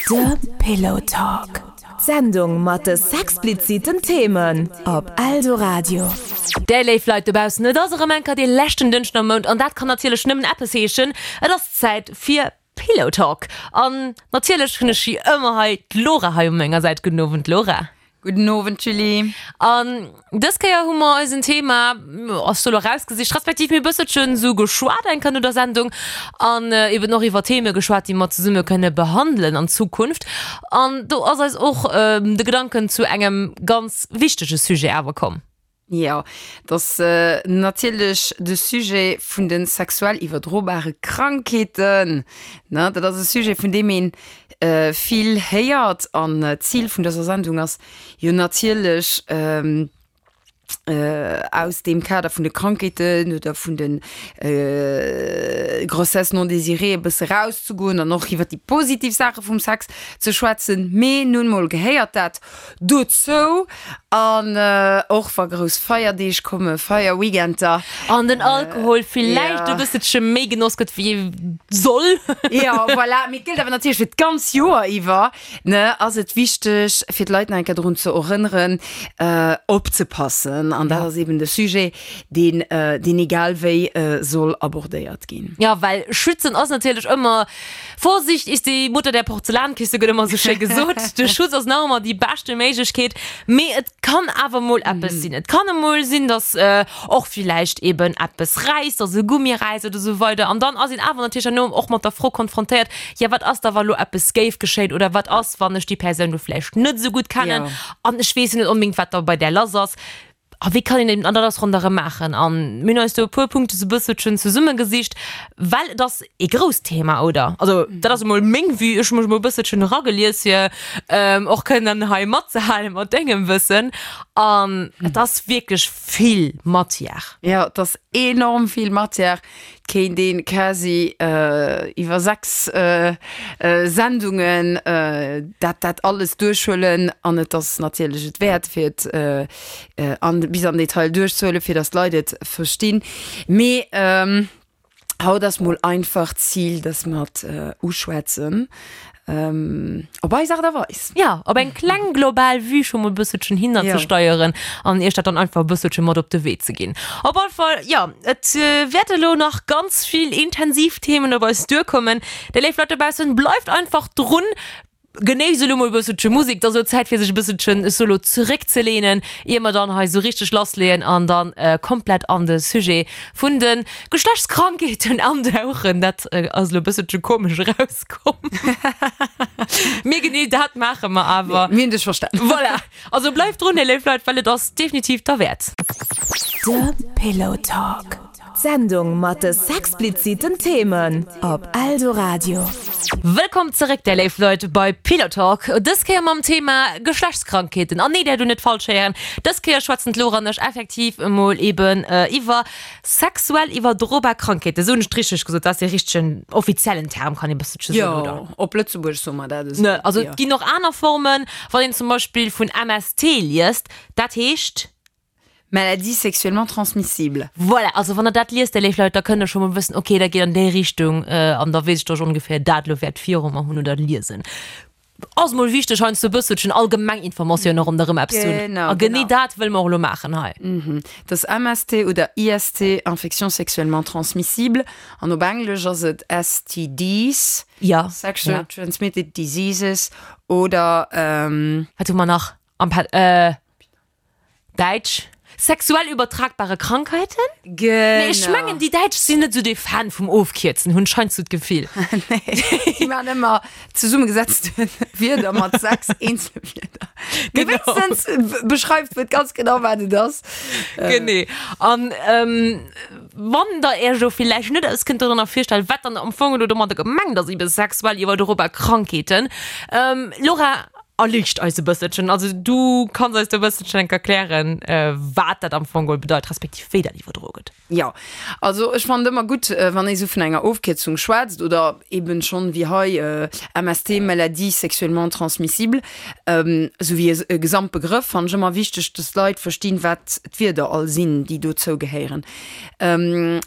De Pillow Talk, d'Sendung mat de sexpliziten Themen op Eldoradio. Déi léif Leit dobaussen, et ass erëm eng Kéier dee leschten Dënschden am Mount an dat kann natierlech nëmmen eppes heeschen, et ass Zäit fir Pillow Talk. An natierlech hunn ech wéi ëmmer hei d'Laura hei u menger Säit. Gudden Owend Laura. Gudden Owend Julie. An dës Kéier hu mer eisen Thema, ass do lo erausgesicht, respektiv mir e bësselchen esou geschwat eng Kéier no der Sendung an eben och iwwer Theme geschwat, déi mer zesumme kënne behandelen an Zukunft. An do ass eis och de Gedanken zu engem ganz wichtege Sujet awer komm. Jo, et ass natierlech de Sujet vun de sexuell iwwerdrobare Krankheeten. Ne, dat ass e Sujet, vun deem ee vill héiert. An d'Zil vun dëser Sendung ass jo natierlech, aus deem Kader vun de Krankheeten oder vun de Grossesses non désirées e bësse rauszegoen an och iwwer déi positiv Saache vum Sex ze schwätzen. Mee nun mol gehéiert dat Dozou, an och wa grouss Feierdeeg kommen, Feierweekender. An den Alkohol villäicht e bësselche méi genoss gëtt wéi ee soll. Jo, voilà. Mee et gëllt awer natierlech fir d'ganz Joer iwwer, ne, ass et wichteg, fir d'Leit nach eng Kéier drun ze erënneren, opzepassen. An dat ass eben de Sujet, deen, deen egal wéi soll abordéiert ginn. Jo, well schützen ass natierlech ëmmer Vorsicht ist die Mutter der Porzellankiste gëtt ëmmer sou schéi gesot. De Schutz ass nach ëmmer déi beschte Méiglechkeet, mee et kann awer mol eppes sinn. Et kann emol sinn, datt och villäicht eben eppes räisst, datt e Gummi räisst oder sou weider an dann ass een awer natierlech herno och mat der Fro konfrontéiert, jo wat ass da wa lo eppes géif geschéien oder wat ass wann ech déi Persoun lo vläicht net sou gutt kennen an ech weess jo net onbedéngt wat da bei där lass ass. A wéi kann een eben, an dat ass ronderëm maachen. A mir hunn eis do e puer Punkte sou e bësselchen zesummegesicht, well et ass ee grousst Thema, oder? Also dat ass emol meng Vue, ech hu mech emol e bësselchen eragelies, fir och kënnen hei matzehale mat dengem Wëssen. An et ass wierklech vill Matière. Jo, et ass enorm vill Matière. Et kéint ee quasi iwwer 6 Sendungen dat dat alles duerchhuelen. An et ass natierlech et wäert, fir et an bis am Detail duerchzehuelen, fir dass d'Leit et verstinn. Mee haut ass mol einfach d'Zil, dass mer et uschwätzen op eis Aart a Weis. Jo, op eng kleng global Vue scho mol e bësselchen hinnerzesteieren an iech dat dann einfach e bësselche mat op de Wee ze ginn. Op alle Fall, jo, et wäerte lo nach ganz vill intensiv Themen op eis duerkommen. Dir léif Leit dobaussen, bleift einfach drun! Genéisst elo mol e bësselche Musek, et ass elo Zäit fir sech e bësselchen, ech soe lo, zeréckzeleenen, ier mer dann hei esou richteg lassleeën an dann komplett an de Sujet vun de Geschlechtskrankheeten andauchen. Dat ass elo e bësselche komesch erauskomm, mee genee dat maache mer awer. Mir hunn dech verstanen. Voilà, also bleift drun, léif Leit, well et ass definitiv derwäert. De Pillow Talk. D'Sendung mat de sexpliziten Themen op Eldoradio. Wëllkomm zeréck där léif Leit bei Pillow Talk, dës Kéier mam Thema Geschlechtskrankheeten. An nee, där do net falsch héieren, dës Kéier schwätzen d'Laura an ech effektiv emol eben iwwer sexuell iwwerdrobar Krankheeten. Esou hunn ech et richteg gesot, dat ass dee richtegen offiziellen Term, kann ee bësselche soen, oder? Jo, op Lëtzebuergesch soe mer dat esou. Ne, also et ginn och aner Formen, wann een zum Beispill vun MST liest, dat heescht. Maladies sexuellement transmissibles. Voilà, also wann der dat liest, dir léif Leit, da kënnt der scho mol wëssen, okay, dat geet an déi Richtung, an da weess ech, datt ech ongeféier dat elo wäert viru mer hunn oder liesen. Ass mol wichteg, heiansdo e bësselchen allgemeng Informatioune ronderëm eppes ze hunn. Genau, A genee genau. dat wëlle mer och elo maachen hei. Dat ass MST oder IST, Infections sexuellement transmissibles, an op Englesch ass et STDs, Ja, Sexual ja. Transmitted Diseases, oder. Wat hu mer nach am Pad-, Däitsch, Sexuell übertragbare Krankheiten? Genau. Mee ech mengen, déi Däitsch sinn net esou dee Fan vum Ofkierzen, hunn ech heiansdo d'Gefill. Nee, déi maachen ëmmer zesummegesetzte Wierder mat 6 eenzele Wierder. Mee Genau. wéinstens beschreift et ganz genau, wat et ass. Genee. An wann der Iech elo villäicht net alles kënnt dorënner virstellen, wat dann am Fong elo domadder gemengt ass, ebe sexuell iwwerdrobar Krankheeten, Laura? Erliicht eis e bësselchen. Also du kanns eis do e bësselchen enk erklären, wat dat am Fong geholl bedeit, respektiv wéi dat iwwerdroe gëtt. Jo, also ech fannen et ëmmer gutt, wann ee sou vun enger Ofkierzung schwätzt oder eben schonn wéi hei MST, Maladie sexuellement transmissible, sou wéi e Gesamtbegrëff, fannen ech ëmmer wichteg, dass d'Leit verstinn, wat d'Wierder all sinn, déi dozou gehéieren.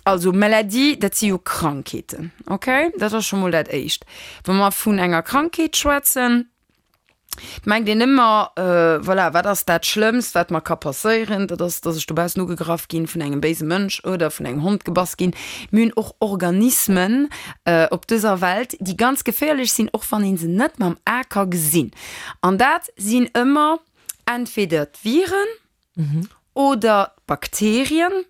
Also Maladie, dat si jo Krankheeten, okay? Dat ass scho mol dat Éischt. Wa mer vun enger Krankheet schwätzen, Et mengt een ëmmer, voilà, wat ass dat Schlëmmst, wat mer ka passéieren? Dat ass, dass ech dobaussen ugegraff ginn vun engem béise Mënsch oder vun engem Hond gebass ginn. Mir hunn och Organismen op dëser Welt, déi ganz geféierlech sinn, och wann ee se net mam A ka gesinn. An dat sinn ëmmer entweder d'Viren oder d'Bakterien.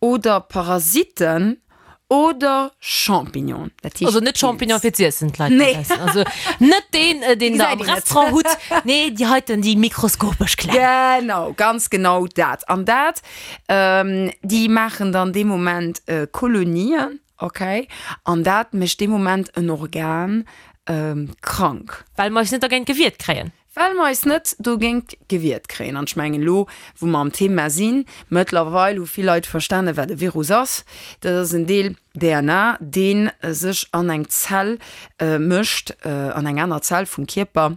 Oder Parasiten oder Champignonen. Dat heescht Also net Champignon fir z'iessen, d'Leit Nee. dobaussen. Also net deen, äh, deen der am Gesäit een net. Restaurant hutt. Nee, déi heiten, déi mikroskopesch kleng. Genau, ganz genau dat. An dat, ähm, déi maachen dann dee Moment äh, Kolonien, okay? An dat mécht dee Moment en Organ ähm, krank. Well mer eis net dergéint gewiert kréien. Well mer eis net dogéint gewiert kréien. An ech mengen, elo wou mer am Thema sinn, mëttlerweil hu vill Leit verstanen, wat e Virus ass. Dat ass en Deel DNA, dee sech an eng Zell mécht, an eng aner Zell vum Kierper,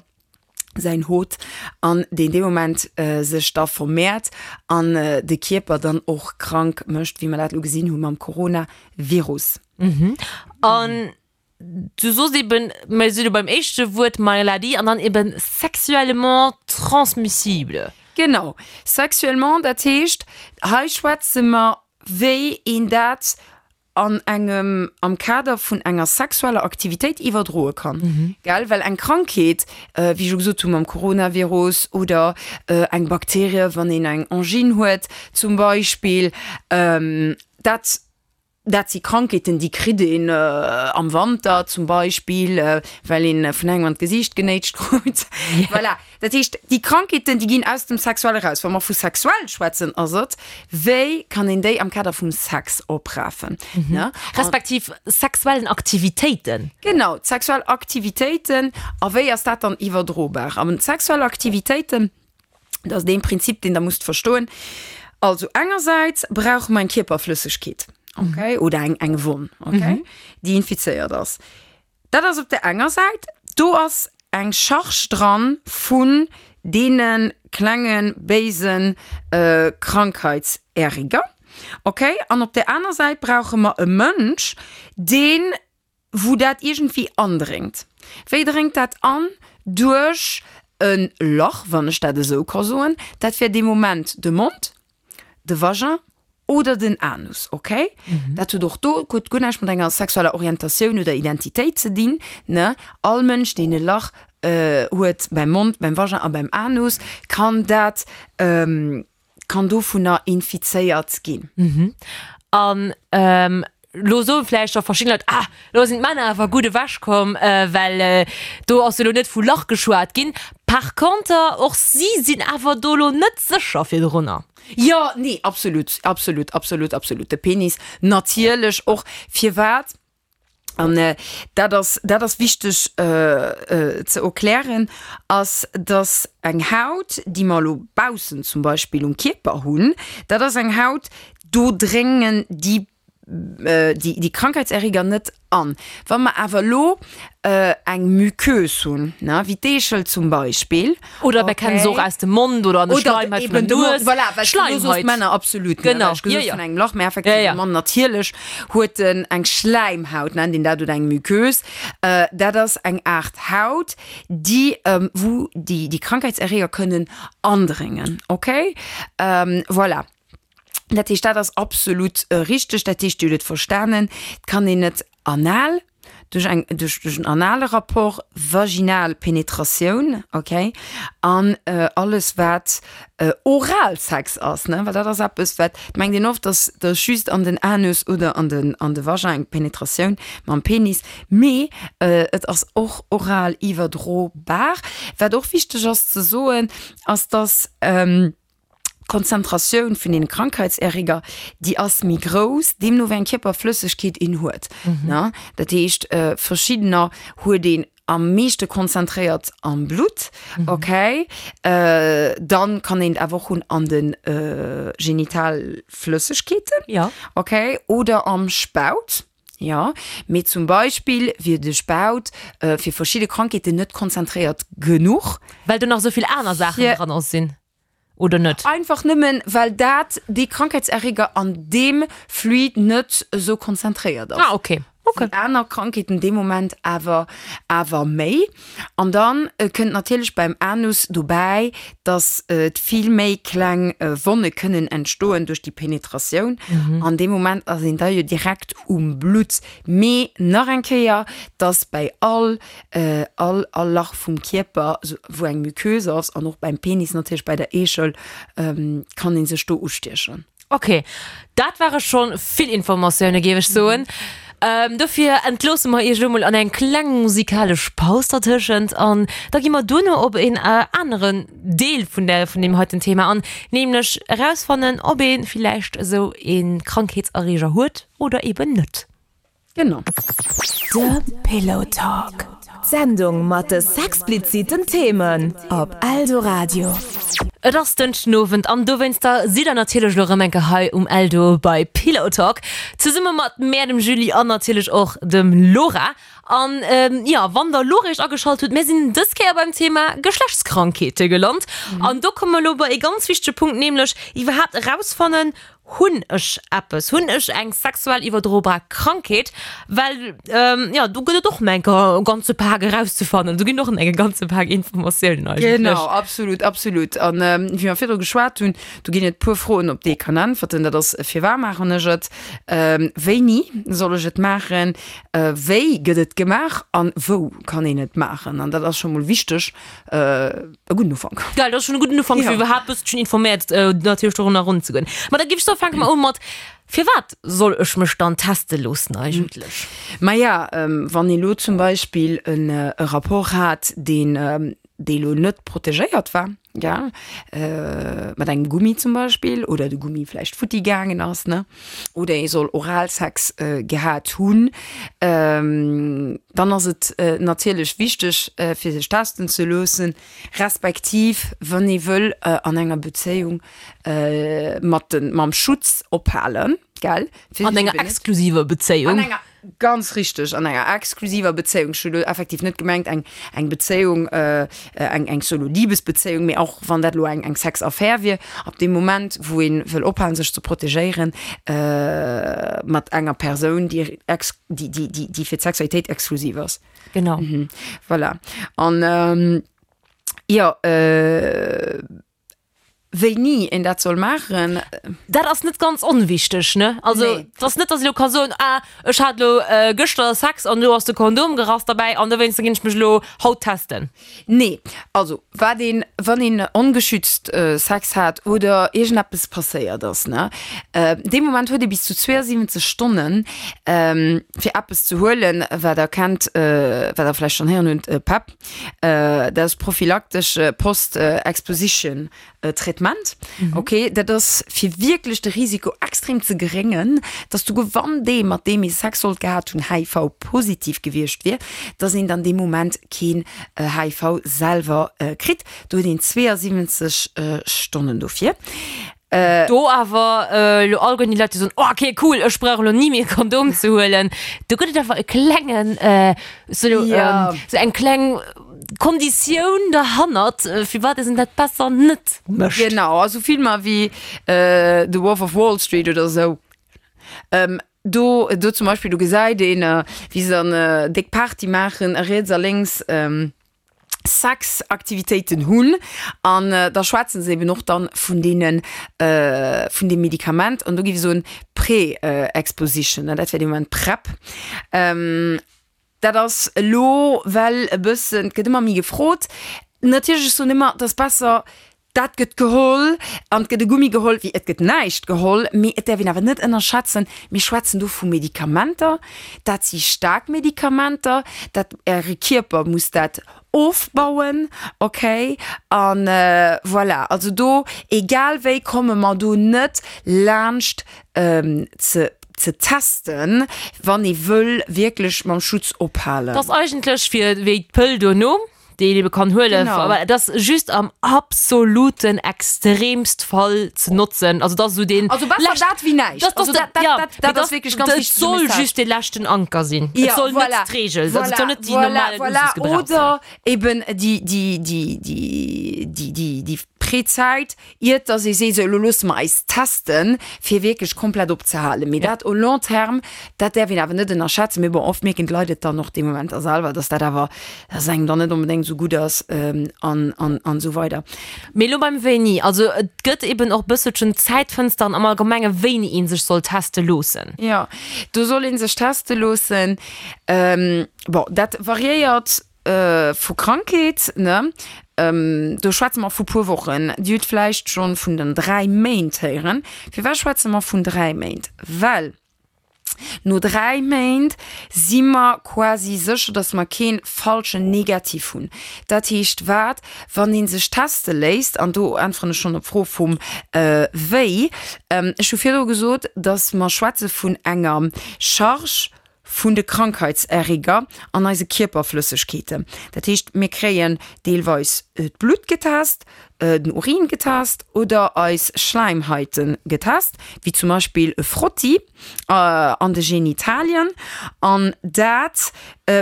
säin Hôte, an deen dee Moment sech da vermehrt an de Kierper dann och krank mécht, wéi mer dat elo gesinn hu mam Coronavirus. An Du soos eben, mir si lo beim éischte Wuert Maladie an dann eben sexuellement transmissible. Genau, sexuellement, dat heescht, hei schwätze mer, wéi een dat an engem, am Kader vun enger sexueller Aktivitéit iwwerdroe kann, gell? Well eng Krankheet, wéi ech elo gesot hu mam Coronavirus oder eng Bakterie, wann een eng Angine huet zum Beispill, dat Dat si Krankheeten, déi kritt een am Wanter zum Beispill, well een vun engem an d'Gesiicht genéitscht krut. Voilà. Dat heescht, déi Krankheeten, déi ginn aus dem Sexuelle eraus. Wa mer vu sexuell schwätzen, ass et, wéi kann een déi am Kader vum Sex oprafen, ne? Respektiv sexuellen Aktivitéiten. Genau, d'sexuell Aktivitéiten. A wéi ass dat dann iwwerdrobar? An d'sexuell Aktivitéiten, Dat ass dee Prinzip, deen Der musst verstoen. Also engersäits brauche mer eng Kierperflëssegkeet, okay, oder eng, eng Wonn, okay, déi infizéiert ass. Dat ass op der enger Säit. Do ass eng Charge dran vun deene klenge béise Krankheitserreger, okay. An op der aner Säit brauche mer e Mënsch, deen wou dat iergendwéi andréngt. Wéi dréngt dat an? Duerch e Lach, wann ech dat esou ka soen. Dat wär dee Moment de Mond, de Vagin oder den Anus, okay? Dat huet och do huet guer näischt mat enger sexueller Orientatioun oder Identitéit ze dinn, ne? All Mënsch, deen e Lach huet beim Mond, beim Vagin a beim Anus, kann dat, kann dovunner infizéiert ginn. An elo soe vläicht scho verschidden Leit, Ah, elo sinn d'Männer awer gutt ewechkomm, well do ass jo elo net vu Lach geschwat ginn. Par conter, och si sinn awer do elo net sécher virdrunner. Jo, nee, absolut, absolut, absolut, absolut. De Penis natierlech och. Firwat? An dat ass, dat ass wichteg ze erklären, ass, dass eng Haut, déi mer elo baussen zum Beispill um Kierper hunn, dat ass eng Haut, do dréngen déi, déi Krankheitserreger net an. Wa mer awer elo eng Muqueuse hunn, ne, wéi d'Eechel zum Beispill, Oder mer kennen se och aus dem Mond oder an der Schleimhaut vun der Nues. Voilà, well du soos Männer, absolut, ne, well ech gesot vun engem Lach, mä effektiv de Mann natierlech huet en eng Schläimhaut, nennt een dat, oder eng Muqueuse. Dat ass eng Aart Haut, déi, wou déi Krankheitserreger kënnen andréngen, okay? Voilà. Dat heescht, dat ass absolut richteg. Dat heescht, Dir hutt et verstanen, et kann een net anal, duerch eng, duerch, duerch en anale Rapport, vaginal Penetratioun, okay, an alles wat Oralsex ass, ne, well dat ass eppes wat, et mengt een oft, dass dass just an den Anus oder an den, an de Vagin eng Penetratioun mam Penis, mee et ass och oral iwwerdrobar. Wat och wichteg ass ze soen, ass dass, D'Konzentratioun vun den Krankheitserreger, déi ass méi grouss, deemno wéi eng Kierperflëssegkeet een huet. Ne? Dat heescht, verschiddener huet een. Am meeschte konzentréiert am Blutt, okay. Dann kann een et awer och hunn an de Genitalflëssegkeeten, Ja. okay, oder am Spaut, jo. Mee zum Beispill wier de Spaut fir verschidde Krankheeten net konzentréiert genuch. Well do nach esou vill aner Saachen dran sinn. Oder net? Einfach nëmmen, well dat, dee Krankheitserreger an deem Fluid net esou konzentréiert ass. Ah, okay. Okay. Wéi aner Krankheeten dee Moment awer, awer méi. An dann kënnt natierlech beim Anus dobäi, dass et vill méi kleng Wonne kënnen entstoen duerch déi Penetratioun. An dee Moment ass een da jo direkt um Blutt. Mee nach eng Kéier, dass bäi all all all Lach vum Kierper wou eng Muqueuse ass an och beim Penis natierlech bei der Eechel kann ee sech do ustiechen. Ok, dat ware scho vill Informatioune géif ech soen. Dofir entloosse mer iech elo mol an eng kleng musikalesch Paus dertëschent an da gi mer duerno op een aneren Deel vun der vun deem heiten Thema an, nämlech erausfannen ob ee villäicht esou ee Krankheetserreeger huet oder eben net. Genau. De Pillow Talk, d'Sendung mat de sexpliziten Themen op Eldoradio. Et ass Dënschdenowend an dowéinster sidd der natierlech elo rëm eng Kéier hei um Eldo bei Pillow Talk, zesumme mat mär, dem Julie an natierlech och dem Laura. An jo, wann der elo réischt ageschalt hutt, mär sinn dës Kéier beim Thema Geschlechtskrankheete gelant an do komme mer elo bei ee ganz wichtege Punkt, nämlech iwwerhaapt erausfannen, Hunn ech eppes? Hunn ech eng sexuell iwwerdrobar Krankheet? Well jo, do gëtt et och nach e ganze Pak erauszefannen. Do ginn och nach e ganze Pak Informatiounen eigentlech. Genau, absolut, absolut. An wéi mer virdru geschwat hunn, do ginn et puer Froen, op déi ee kann äntwerten. Dat ass, Firwat maachen ech et? Wéini soll ech et maachen? Wéi gëtt et gemaach? An wou kann een et maachen? An dat ass scho mol wichteg, E gudden Ufank. Geil, dat ass schonn e gudden Ufank, fir iwwerhaapt bësselchen informéiert natierlech dorunner eranzegoen. Ma da géif ech soen, fänke mer u mat, Firwat soll ech mech dann teste loossen eigentlech? Maja, wann ee lo zum Beispill e Rapport hat, deen, dee lo net protegéiert war, gell, mat engem Gummi zum Beispill, oder de Gummi vläicht futti gaangen ass, ne, oder ee soll Oralsex gehat hunn, dann ass et natierlech wichteg, fir sech testen ze loossen, respektiv wann ee wëll an enger Bezéiung mat de mam Schutz ophalen, gell? An enger exklusiver Bezéiung. An enger, ganz richteg, an enger exklusiver Bezéiung. Ech hu lo effektiv net gemengt eng eng Bezéiung, eng eng solo Libesbezéiung, mee och wann dat elo eng eng Sexaffär wier, ab deem Moment wou ee wëll ophalen sech ze protegéieren mat enger Persoun, déi ex déi déi déi déi fir d'Sexualitéit exklusiv ass. Genau. Voilà. An jo, wéini een dat soll maachen. Dat ass net ganz onwichteg, ne? Also, Nee. et ass net, dass ech elo ka soen, ah, ech hat elo gëschter Sex an elo ass de Kondom gerass derbäi an dowéinster ginn ech mech elo haut testen. Nee. Also, wat een, wann een ongeschützt Sex hat oder iergendeppes passéiert ass, ne, dee Moment huet ee bis zu 72 Stonnen, fir eppes ze huelen, wat der kennt, wat der vläicht schonn héieren hutt, PEP. Dat ass prophylaktesch Post-Exposition Traitement. Ok, dat ass fir wierklech de Risiko extrem ze geréngen, dass souguer wann dee mat deem ee Sex sollt gehat hunn HIV-positiv gewiescht wier, dass een dann dee Moment keen HIV selwer kritt. Do huet een 72 Stonnen dofir. Do awer elo allgemeng déi Leit, déi soen, oh okay cool, ech brauch elo ni méi e Kondom ze huelen. Do gëtt et awer e klengen, sou sou eng kleng Konditioun derhannert, firwat een dat besser net mécht. Genau, also Filmer wéi The Wolf of Wall Street oder sou, do do zum Beispill, do gesäit een, wéi se dann déck Party maachen a riets a lénks Sexaktivitéiten hunn an da schwätzen se eben och dann vun deenen, vun deem Medikament an do géif ech soen Pre-Exposition, dat wär dee Moment PrEP. Dat ass elo well e bëssen, et gëtt ëmmer méi gefrot. Natierlech, ech soen ëmmer, et ass besser Dat gëtt geholl an et gëtt e Gummi geholl, wéi et gëtt näischt geholl. Mee et däerf een awer net ënnerschätzen, mir schwätzen do vu Medikamenter, dat si staark Medikamenter, dat Äre Kierper muss dat ofbauen, okay? A voilà, also do, egal wéi komme mer do net laanscht ze. ze testen, wann ee wëll wierklech mam Schutz ophalen. Dat ass eigentlech fir wéi d'Pëll duerno, déi een ebe kann huelen, Genau. aber dat ass just am absoluten extremst Fall ze notzen. Also dat ass esou deen Also besser lescht- dat wéi näischt. Dat, Also dat, dat, dat, ja, dat, mee dat ass wierklech ganz Et wichtege soll Message. just dee leschten Anker sinn. Ja, Et soll voilà. net d'Reegel, also et soll net déi voilà, normale voilà. Usage sinn. Oder eben déi, déi, déi, déi, déi, déi, déi Prezäit, iert dass ee seet, sou elo loosse mer eis testen, fir wierklech komplett opzehalen. Mee dat au long terme, dat däerf een awer net ënnerschätzen. Mee bon, oft mierken d'Leit et dann och dee Moment da selwer, dass dat awer, dass engem dann net onbedéngt esou gutt ass an, an, an esou weider. Mee elo beim Wéini, also et gëtt eben och bësselchen Zäitfënsteren am Allgemenge wéini ee sech soll teste loossen. Jo, do soll ee sech teste loossen. Bon, dat variéiert Vu Krankheet, ne? Do schwätze mer vu puer Wochen. Dir hutt vläicht schonn vun den 3 Méint héieren. Firwat schwätze mer vun 3 Méint? Well no 3 Méint si mer quasi sécher, dass mer kee falschen Negativ hunn. Dat heescht wat? Wann ee sech teste léisst, an do äntweren ech schonn op d'Fro vum wéi, ech hu virdru gesot, dass mer schwätze vun enger Charge, vun de Krankheitserreger an eise Kierperflëssegkeeten. Dat heescht, mir kréien deelweis d'Blutt getest, den Urin getest oder eis Schläimhaite getest, wéi zum Beispill e Frotti an de Genitalien. An dat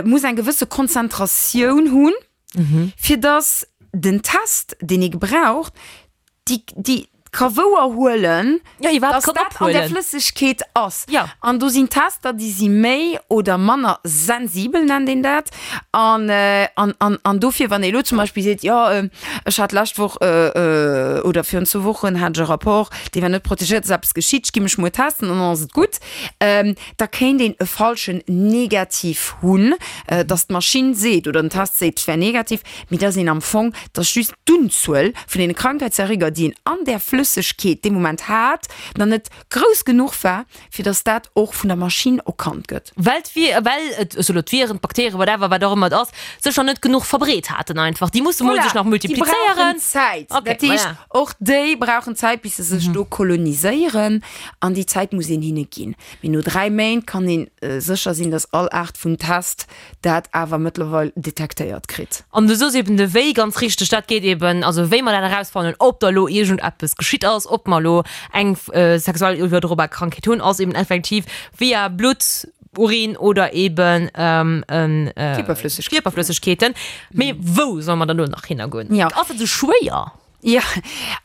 muss eng gewësse Konzentratioun hunn, fir dass den Test, deen ee gebraucht, déi, déi ka wouer huelen, Ja, iwwerhaapt dass kann dat an der ophuelen. Flëssegkeet ass. Ja. An do sinn Tester, déi si méi oder manner sensibel, nennt een dat. An, an, an, an dofir, wann ee elo zum Beispill seet, jo, ech hat d'lescht Woch oder virun zwou Wochen hat ech e Rapport, dee war net protegéiert, ass eppes geschitt, ech gi mech muer testen an dann ass et gutt, da kéint een e falschen Negativ hunn, dass d'Maschinn seet oder den Test seet, et wär negativ, mee dass een am Fong, dass just d'Unzuel vun deene Krankheitserreger, déi een an där Flëssegkeet dee Moment hat, nach net grouss genuch war, fir dass dat och vun der Maschinn erkannt gëtt. Well d'Vi-, well et, ech soe lo d'Viren, d'Bakterien, whatever, wat och ëmmer et ass, sech nach net genuch verbreet haten einfach. Déi musse mol Voilà, sech nach déi multiplizéieren. brauchen Zäit. Okay, Dat heescht, voilà. och déi brauchen Zäit, bis se sech do koloniséieren, an déi Zäit muss een hinne ginn. Mee no 3 Méint kann een sécher sinn, dass all Aart vun Test dat awer mëttlerweil detektéiert kritt. An du soos eben de Wéi ganz richteg, dat geet eben, also wéi mer dat erausfannen, ob da lo iergendeppes geschitt ass, ob mer lo eng sexuell iwwerdrobar Krankheet hunn, ass eben effektiv via Blutt, Urin oder eben Kierperflëssegkeeten. Kierperflëssegkeeten. Mee wou solle mer dann elo nach hinnergoen? Jo. Ass dat esou schwéier? Jo,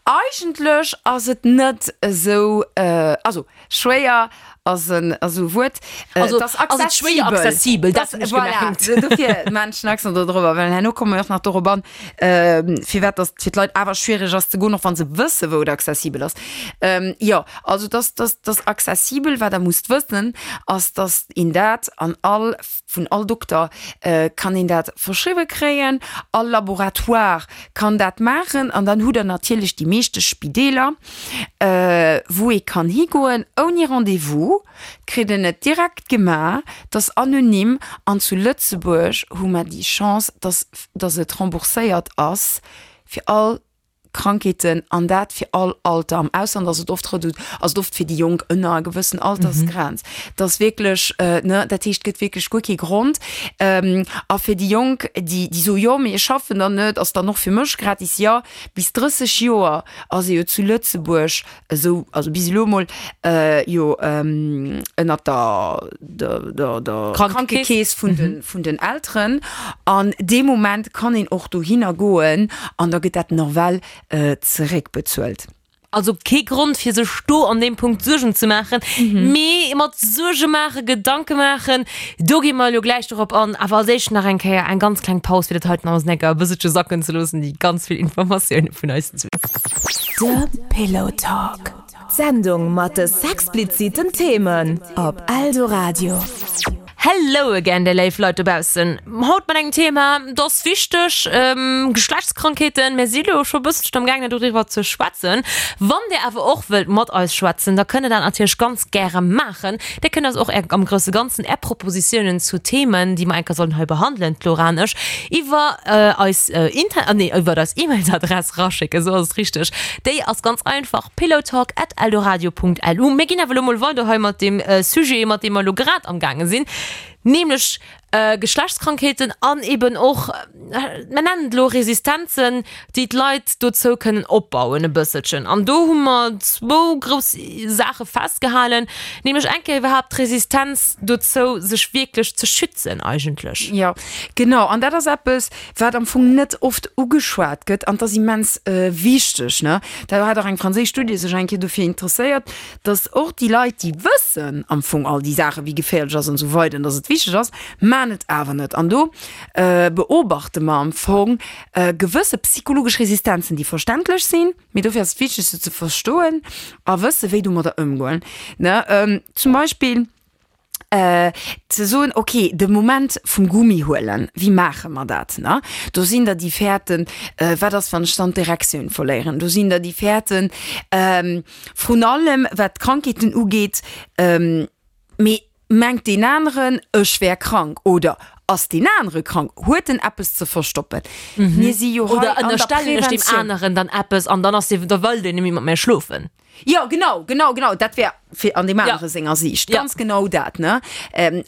eigentlech ass et net esou, also schwéier ass en ass esou e Wuert, Also et ass ass et schwéier accessibel. accessibel, dat hunn ech Voilà, gemengt. dofir maachen ech en Accent do drop, well herno komme mir och nach dorop an, firwat datt fir d'Leit awer schwiereg ass ze goen, och wa se wësse wou et accessibel ass. Jo, also et ass, et ass accessibel. Wat der musst wëssen, ass datt een dat an all Vun all Dokter kann een dat verschriwwe kréien, all Laboratoire kann dat maachen an dann hutt Der natierlech déi meeschte Spideeler, wou ee kann higoen ouni Rendez-vous, kritt en et direkt gemaach, et ass anonym an zu Lëtzebuerg hu mer déi Chance, dass dass et rembourséiert ass fir all Krankheeten an dat fir all Alter. Am Ausland ass et oft redu ass et oft fir déi Jonk ënner enger gewëssen Altersgrenz. Dat ass wierklech, ne, dat heescht, et gëtt wierklech guer kee Grond. A fir déi Jonk, déi déi soe jo, mee ech schaffen dann net, ass dann och fir mech gratis. Jo, bis 30 Joer ass ee jo zu Lëtzebuerg esou, also bis elo emol, jo ënnert der, der, der, der Krankekeess vun de, vun den Elteren. An dee Moment kann een och dohinner goen an da gëtt dat nawell zeréckbezuelt. Also kee Grond fir sech do an deem Punkt Suergen ze maachen. Mee mat Suerge maachen, Gedanke maachen, do gi mer elo gläich dorop an. Awer als éischt nach eng Kéier eng ganz kleng Paus, fir dat heiten alles enker e bësselche sacken ze loossen, déi ganz vill Informatioune vun eis. De Pillow Talk, d'Sendung mat de sexpliziten Themen op Eldoradio. Hello again, déi léif Leit dobaussen. Haut mat engem Thema, dat ass wichteg, Geschlechtskrankheeten. Mir si lo scho e bësselchen am gaangen doriwwer ze schwätzen. Wann dir awer och wëllt mat eis schwätzen, da kënnt der dat natierlech ganz gäre maachen. Dir kënnt eis och är, am grousse Ganzen, är Propositiounen zu Themen, déi mer eng Kéier sollen hei behandelen, d'Laura an ech, iwwer eis Inter-, nee, iwwer eis E-Mails-Adress raschécken, esou ass et richteg. Déi ass ganz einfach, pillowtalk at eldoradio.lu. Mir ginn awer elo mol weider hei mat deem Sujet, mat deem mer elo grad am gaange sinn, nämlech Geschlechtskrankheeten an eben och, mer nennen et elo Resistenzen, déi d'Leit dozou kënnen opbauen e bësselchen. An do hu mer zwou grouss Saache festgehalen, nämlech eng Kéier iwwerhaapt d'Resistenz dozou, sech wierklech ze schützen eigentlech. Jo, genau. An dat ass eppes, wat am Fong net oft ugeschwat gëtt, an 't ass immens wichteg, ne? Da hat och eng franséisch Studie sech eng Kéier dofir interesséiert, datt och déi Leit, déi wëssen am Fong all déi Saachen, wéi geféierlech ass an esou weider an datt et wichteg ass, man et awer net. An do beobachte mer am Fong gewësse psychologesch Resistenzen, déi verständlech sinn, mee dofir ass et wichteg se ze verstoen a wësse wéi domadder ëmgoen, ne? Zum Beispill. ze soen, ok, de Moment vum Gummi huelen, wéi maache mer dat, ne? Do sinn der déi fäerten, wat ass wann ech dann d'Erektioun verléieren? Do sinn der déi fäerten, vrun allem wat d'Krankheeten ugeet, mee mengt deen aneren ech wär krank oder ass deen anere krank, huet en eppes ze verstoppen? Mir si jo hei an der Preventioun. Oder ënnerstellen ech deem aneren dann eppes an dann ass dee, da wëll deen net méi mat mär schlofen. Jo, genau, genau, genau. Dat wär fir an deem anere senger Siicht ganz genau dat, ne?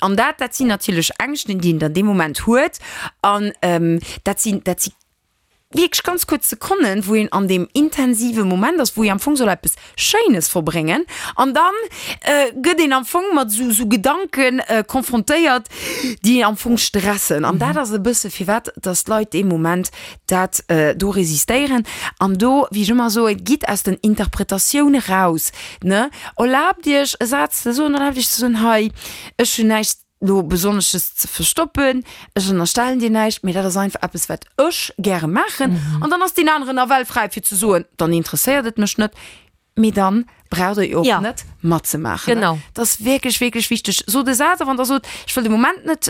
An dat, dat sinn natierlech Ängschten, déi een dann dee Moment huet. An dat sinn, dat si wierklech ganz kuerz Sekonnen, wou een an deem intensive Moment ass, wou ee am Fong soll eppes Schéines verbréngen. An dann gëtt een am Fong mat esou, esou Gedanke konfrontéiert, déi een am Fong stressen. An dat ass e bësse firwat, dass d'Leit dee Moment dat do resistéieren an do, wéi ech ëmmer soen, gitt aus den Interpretatioune raus, ne, erlaabt Iech e Saz ze soen, erlaabt Iech ze soen, hei, ech hunn näischt do Besonnesches ze verstoppen, ech ënnerstellen dir näischt, mee dat ass einfach eppes, wat ech gäre maachen. An dann ass deen aneren nawell fräi fir ze soen, dann interesséiert et mech net. Mee dann braucht der jo och net matzemaachen. Genau. Dat ass wierklech, wierklech wichteg. Sot e Saz, a wann der sot, ech wëll de Moment net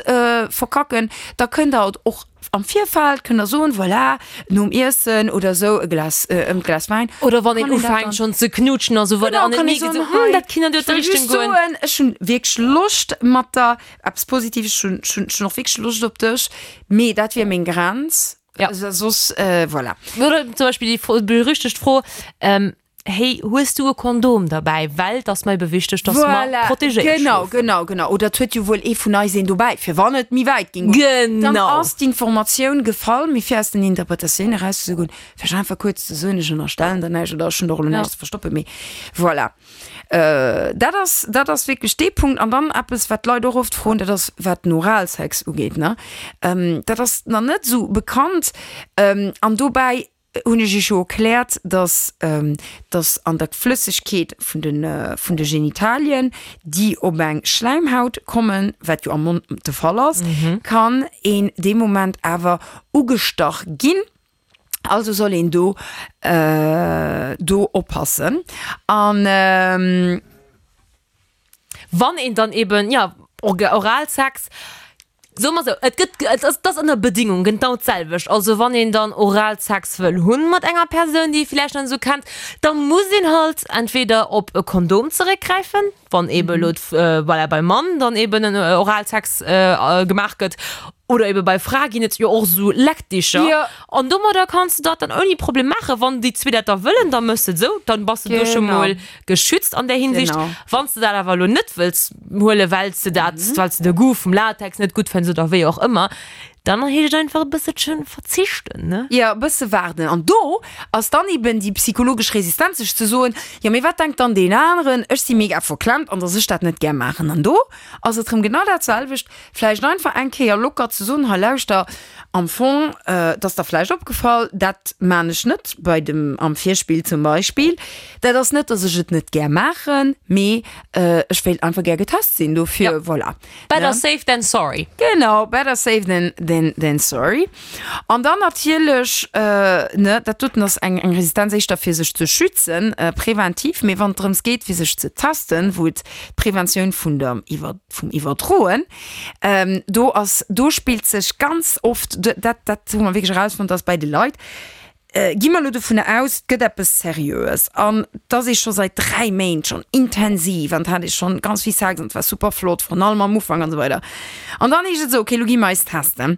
verkacken, da kënnt der et och am Virfeld, kënnt der soen, voilà, nom Iessen oder esou e Glas, e Glas Wäin. Oder wann een ufänkt schonn ze knutschen a sou weider an et mierkt een esou, hm, dat kinnt an déi Richtung goen. Ech wëll just soen, ech hunn wierklech Loscht mat der, eppes Positives, ech hunn, ech hunn och wierklech Loscht op dech, mee dat wier meng Grenz. Ja. Also, soss, äh, voilà. Oder zum Beispiel die Fro berüchtigt Fro, ähm, hey, hues du e Kondom dabei? Well et ass mer ebe wichteg, dass mer Voilà, protegéiert genau, schlofen. genau, genau. Oder et huet jo wuel ee vun eis een dobäi, fir wann et méi wäit ging goen. Dann Genau. ass d'Informatioun gefall, mee fir aus den Interpretatiounen erauszegoen, vläicht einfach kuerz ze soen, ech ënnerstellen der näischt oder ech hunn der och elo Ja. näischt ze verstoppen, mee voilà. Dat ass, dat ass wierklech dee Punkt. An dann eppes, wat d'Leit och oft froen, dat ass, wat den Oralsex ugeet, ne? Dat ass nach net esou bekannt. An dobäi hunn ech Iech jo erkläert, dass, dass an der Flëssegkeet vun de, vun de Genitalien, déi op eng Schläimhaut kommen, wat jo am Mond de Fall ass, kann een dee Moment awer ugestach ginn. Also soll een do do oppassen an. Wann een dann eben, jo, Oralsex, soe mer esou, et gëtt, et ass, et ass ënner Bedingung genau d'selwecht. Also wann een dann Oralsex wëll hunn mat enger Persoun, déi ee vläicht nach net esou kennt, da muss een halt entweder op e Kondom zeréckgräifen, wann eben elo voilà beim Mann dann eben en Oralsex gemaach gëtt oder eben bei Frae ginn et jo och esou Leckdicher Jo. an domadder kanns de dat dann ouni Problem maachen, wann déi zwee dat da wëllen, da méchs de et esou, dann bass de do scho Genau. mol geschützt an där Hinsicht. Genau. Wann s de dat awer elo net wëlls huelen, well s de dat, well s de de Goût vum Latex net gutt fënns oder wéi och ëmmer, Dann heescht et einfach e bësselchen verzichten, ne? Jo, e bësse waarden. An do ass dann eben déi psychologesch Resistenz, sech ze soen, jo mee wat denkt dann deen aneren, ech si mega verklemmt an dass ech dat net gär maachen. An do ass et rëm genau dat selwecht, vläicht einfach eng Kéier locker ze soen, hei lauschter, am Fong, et ass der vläicht opgefall, dat maan ech net bei dem, am Virspill zum Beispill, dat ass net, dass ech et net gär maachen, mee ech wéilt einfach gär getest sinn, dofir, voilà. Better safe than sorry. Genau, better safe than, than. Than, than sorry. An dann natierlech, ne, dat doten ass eng, eng Resistenz éischter fir sech ze schützen, präventiv, mee wann et drëms geet fir sech ze testen, wou et d'Preventioun vun der Iwwer, vum Iwwerdroen, do ass, do spillt sech ganz oft, dat, dat hu mer wierklech erausfonnt, dass bei de Leit, Gi mer elo dovunner aus, et gëtt eppes Seriöes an et ass ee scho säit 3 Méint schonn intensiv an et hat ee schonn ganz vill Sex an et war super flott, vrun allem am Ufank an esou weider. An dann heescht et esou, okay, elo gi mer eis testen.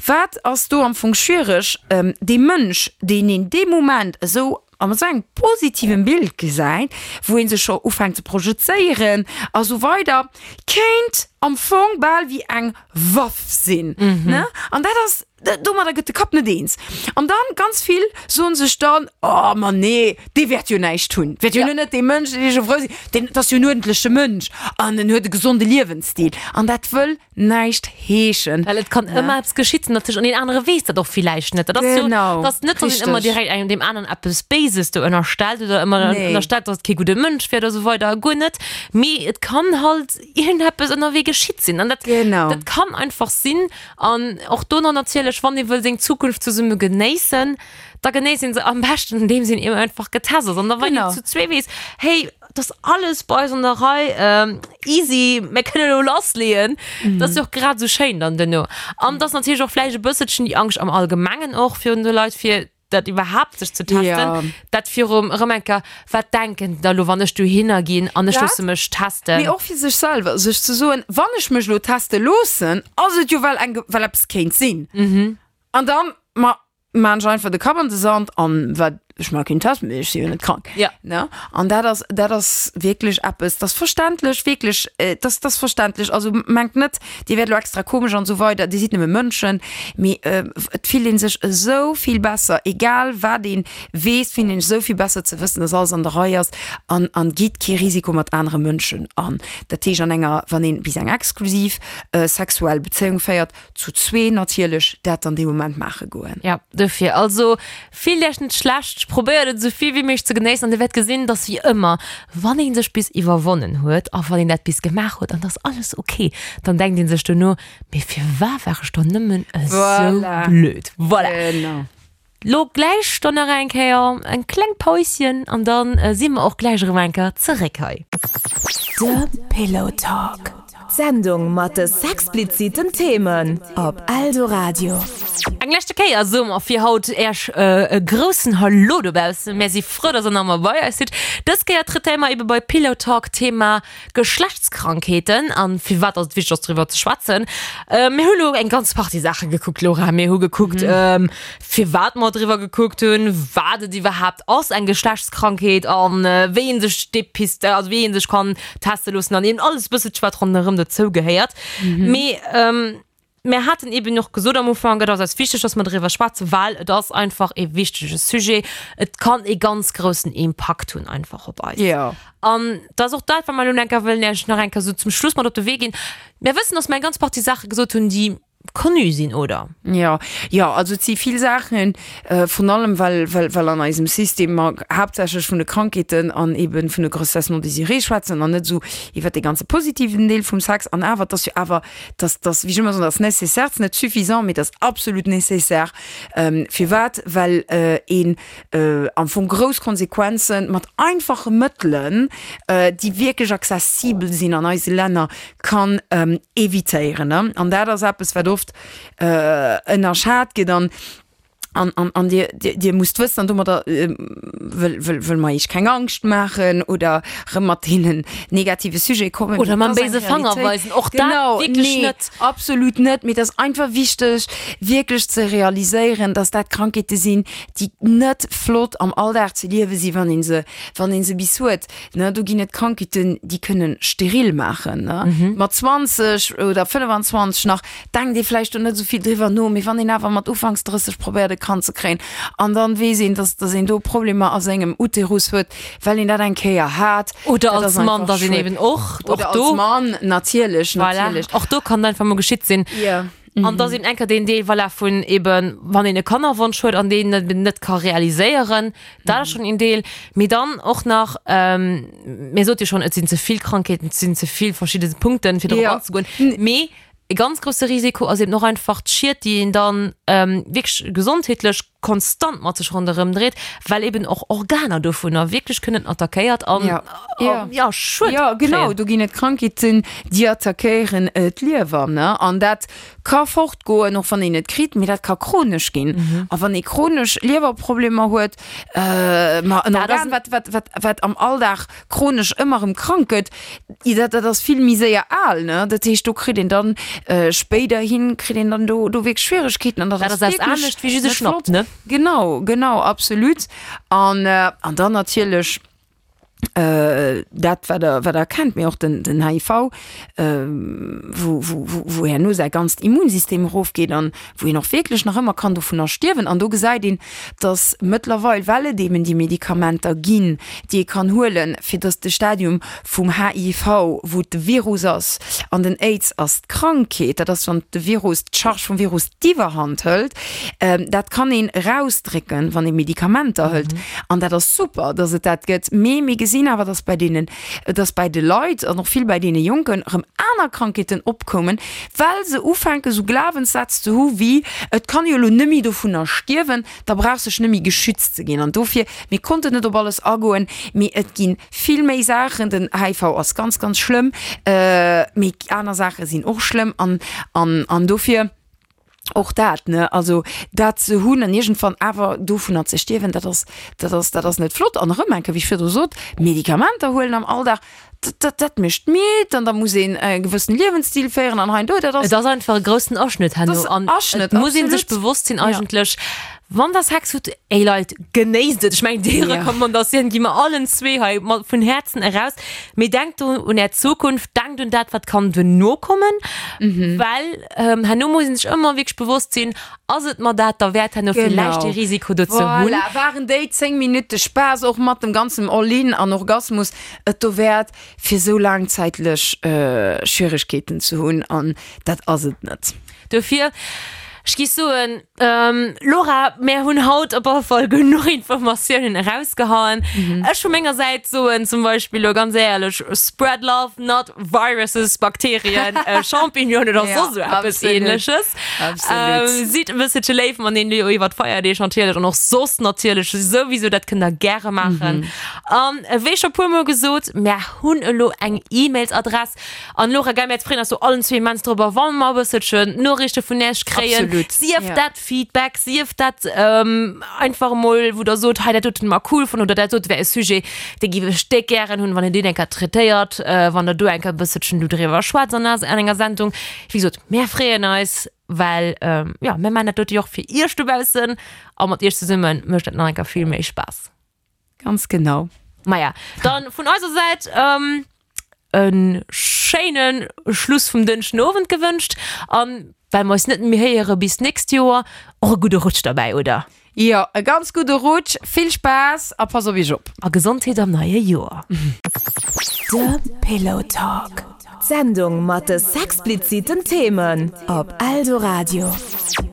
Wat ass do am Fong schwiereg? Dee Mënsch, deen een dee Moment esou a mat esou engem positivem Bild gesäit, wou ee sech scho ufänkt ze projezéieren a sou weider, kéint am Fong bal wéi eng Waff sinn, ne? An dat ass. Domadder gëtt de Kapp net eens. An dann, ganz vill soen sech dann, Oh, ma nee, dee wäert jo näischt hunn. Wäert jo net dee Mënsch, deen ech erfrou sinn. Deen, dat ass jo en uerdentleche Mënsch an en huet e gesonde Liewensstil. An dat wëll näischt heeschen. Well et kann ëmmer eppes geschitt natierlech an deen anere weess dat och villäicht net. Dat ass jo, dat ass net, datt een ëmmer direkt engem deem aneren eppes Béises do ënnerstellt oder ëmmer ënnerstellt, datt et kee gudde Mënsch wier oder esou weider. Guer net. Mee et kann halt iergendeppes ënnerwee geschitt sinn. An dat, dat kann einfach sinn. An och do nach natierlech, wann ee wëll seng Zukunft zesumme genéissen, da genéisst een se am beschten, andeems een eben einfach getest ass. An da wann een zu zwee weess, hey, et ass alles bei eis an der Rei, easy, mir kënnen elo lassleeën, dat ass jo och grad esou schéin dann duerno. An et ass natierlech och vläicht e bësselchen déi Angscht am Allgemengen och virun de Leit, fir dat iwwerhaapt sech ze testen, ja. dat virum erëm eng Kéier, wat denken da lo, wann ech dohinner ginn an ech loosse mech testen. Mee och fir sech selwer, sech ze soen, wann ech mech lo teste loossen, ass et jo well eng, well eppes kéint sinn. Mhm. An dann, ma maan ech einfach de Kapp an de Sand an wat, ech maa keen Test, mee ech si jo net krank. Ja. Ne? An dat ass, dat ass wierklech eppes, dat ass verständlech, wierklech, dat ass verständlech. Also mengt net, Dir wäert elo extra komesch an esou weider, Dir sidd nëmme Mënschen, mee et fillt ee sech esou vill besser, egal wat ee weess, fillt een sech esou vill besser ze wëssen, dass alles an der Rei ass an an geet kee Risiko mat anere Mënschen an. Dat heescht an enger, wann een bis eng exklusiv sexuell Bezéiung féiert, zu zwee natierlech, dat dann dee Moment maache goen. Jo, dofir also Fillt iech net schlecht, probéiert et esou vill wéi méiglech ze genéissen an dir wäert gesinn, dass wéi ëmmer, wann een sech bis iwwerwonnen huet a wann een dat bis gemaach huet an et ass alles ok, dann denkt een sech dono, mee firwat war ech dann nëmmen esou blöd? Voilà. Genau. Lo gläich dann nach eng Kéier eng kleng Päuschen an dann si mer och gläich erëm eng Kéier zeréck hei. De Pillow Talk. D'Sendung mat de sexpliziten Themen op Eldoradio. Eng leschte Kéier soe mer fir haut Äerch e groussen Hallo dobaussen. Mär si frou, dass der nach ëmmer bei eis sidd. Dës Kéier traitéiere mer ebe bei Pillow Talk d'Thema Geschlechtskrankheeten an firwat dass et wichteg ass driwwer ze schwätzen. Mir hu lo eng ganz Partie Saache gekuckt, Laura. Mir hu gekuckt, firwat mer driwwer gekuckt hunn, wat et iwwerhaapt ass, eng Geschlechtskrankheet an wéi ee sech depist, also wéi ee sech kann teste loossen an eben alles bësselche wat ronderëm dozou gehéiert. Mee mir haten eben och gesot am Ufank, et ass eis wichteg, dass mer driwwer schwätzen, well et ass einfach e wichtege Sujet. Et kann e ganz groussen Impakt hunn einfach op eis. Jo. An dat ass och dat, wat mer elo enker wëllen Iech nach eng Kéier esou zum Schluss mat op de Wee ginn. Mir wëssen, dass mer eng ganz Partie Saache gesot hunn, déi connu sinn, oder? Jo, jo, also et si vill Saachen, vrun allem well, well, well an eisem System mer haaptsächlech vun de Krankheeten an eben vun de Grossesses non désirées schwätzen an net esou iwwert dee ganze positiven Deel vum Sex. An awer, et ass jo awer, dass, dass, wéi ech ëmmer soen, dat ass nécessaire, et ass net suffisant, mee et ass absolut nécessaire. Firwat? Well een am Fong grouss Konsequenzen mat einfache Mëttelen, déi wierklech accessibel sinn an eise Länner, kann evitéieren. An dat ass eppes, wat oft ënnerschat gëtt. An, an, an, an Dir, Dir, Dir musst wëssen, an domadder wëll, wëll, wëll mer Iech keng Angscht maachen oder erëm mat deenen negative Sujete kommen. Oder mam béise Fanger weisen, och dat wierklech net. Genau, nee, absolut net. Mee et ass einfach wichteg, wierklech ze realiséieren, dass dat Krankheete sinn, déi net flott am Alldag ze liewe sinn, wann ee se, wann ee se bis huet. Ne, do ginn et Krankheeten, déi kënnen steril maachen. Ne? Mhm. Mat 20 oder 25 nach denkt ee vläicht do net esou vill driwwer no, mee wann een awer mat ufanks 30 probéiert e Kand ze kréien an dann weess een, dass, dass een do Problemer a sengem Uterus huet, well een dat eng Kéier hat. Oder als Mann, dass een eben och, och do. Als Mann, natierlech, Voilà. natierlech. Och do kann et einfach mol geschitt sinn. Ja. An dass eben enker deen Deel, voilà, vun eben, wann een e Kannerwonsch huet an deen eben net ka realiséieren, dat ass schonn een Deel. Mee dann och nach, mir sot jo schonn, et sinn ze vill Krankheeten, et sinn ze vill verschidde Punkten, fir dorop anzegoen. Mee. E ganz grousse Risiko ass eben och einfach d'Schied, déi een dann wierklech gesondheetlech konstant mat sech ronderëm dréit, well eben och Organer dovunner wierklech kënnen attackéiert an ja Schued kréien. Jo, genau, do ginn et Krankheeten, déi attackéieren d'Liewer, ne, an dat ka fortgoen, och wann een et kritt, mee dat ka chronesch ginn. A wann ee chronesch Liewerproblemer huet, ma en Organ, wat, wat, wat, wat am Alldag chronesch ëmmer erëm krank gëtt, dat, dat ass vill méi séier al, ne? Dat heescht, do kritt een dann spéiderhin kritt een dann do, do wierklech Schwieregkeeten an dat ass wierklech anescht wéi just e Schnapp, ne? Genau, genau, absolut. An, an dann natierlech dat, wat Der, wat Der kennt, mee och den, den HIV, wou, wou, wou, wou herno säi ganzt Immunsystem erofgeet an wou een och wierklech nach ëmmer kann dovunner stierwen. An do gesäit een, dass mëttlerweil, well et eben déi Medikamenter ginn, déi ee kann huelen, fir dass de Stadium vum HIV, wou et de Virus ass, an den Aids ass d'Krankheet, dat ass wann de Virus, d'Charge vum Virus d'Iwwerhand hëlt, dat kann een erausdrécken, wann ee Medikamenter hëlt. An dat ass super, dass et dat gëtt. Mee mir gesinn awer, dass bei deenen, dass bei de Leit an och vill bei deene Jonken erëm aner Krankheeten opkoumen, well se ufänken esou Glawenssätz ze hu wéi, et kann jo elo nëmmi dovunner stierwen, da brauchs dech nëmmi geschützt ze ginn. An dofir, mir konnten net op alles agoen, mee et gi vill méi Saachen. Den HIV ass ganz, ganz schlëmm, mee aner Saache sinn och schlëmm an, an, an dofir och dat, ne, also dat ze hunn an iergendwann awer dovunner ze stierwen, dat ass, dat ass, dat ass net flott. An erëm eng Kéier, wéi ech virdru sot, Medikamenter huelen am Alldag, dat, dat, dat mécht midd an da muss een e gewëssen Liewensstil féieren an hei an do, dat ass. Et ass einfach e groussen Aschnëtt herno an Aschnëtt, et muss ee sech bewosst sinn eigentlech, wann der Sex hutt, ey Leit, genéisst et. Ech mengen déi Recommandatioun gi mer allen zwee hei mat vun Häerzen eraus, mee denkt do un är Zukunft, denkt un dat wat kann duerno kommen, well herno muss ee sech ëmmer wierklech bewosst sinn, Ass et mer dat derwäert herno villäicht dee Risiko do ze hunn? Voilà, waren déi 10 Minutte Spaass och mat dem ganzem All-in an Orgasmus et dowäert, fir sou laangzäitlech Schwieregkeeten ze hunn? An dat ass et net. Dofir, ech géif soen, Laura, mär hunn haut op alle Fall genuch Informatiounen erausgehauen. Ech vu menger Säit soen zum Beispill elo ganz éierlech, Spread love, not viruses, Bakterien, Champignonen oder soss esou eppes Ähnleches. Sidd e bësselche léif mateneen elo iwwer d'Feierdeeg natierlech an och soss natierlech souwisou, dat kënnt der gäre maachen. An wéi scho puermol gesot, mär hunn elo eng E-Mails-Adress. An Laura, gell, mär freeën eis do allen zwee immens drop, wa mer e bësselchen Noriichte vun Iech kréien. Sief dat Feedback, sief dat einfach emol, wou der sot, hei dat doten hu mer cool fonnt oder dat dote wär e Sujet, dee géif ech déck gären hunn, wann een deen eng Kéier traitéiert, wann der do eng Kéier e bësselchen do driwwer schwätzt an enger Sendung. Wéi gesot, mär freeën eis, well jo, mär maachen dat dote jo och fir iech dobaussen a mat iech zesumme mécht dat nach eng Kéier vill méi Spaass. Ganz genau. Maja, dann vun eiser Säit e schéine Schluss vum Dënschden Owend gewënscht an well mer eis net méi héiere bis d'nächst Joer, och e gudde Rutsch derbäi, oder? Jo, e ganz gudde Rutsch, vill Spaass a pass op iech op! A Gesondheet am neie Joer! De Pillow Talk, d'Sendung mat de sexpliziten Themen op Eldoradio.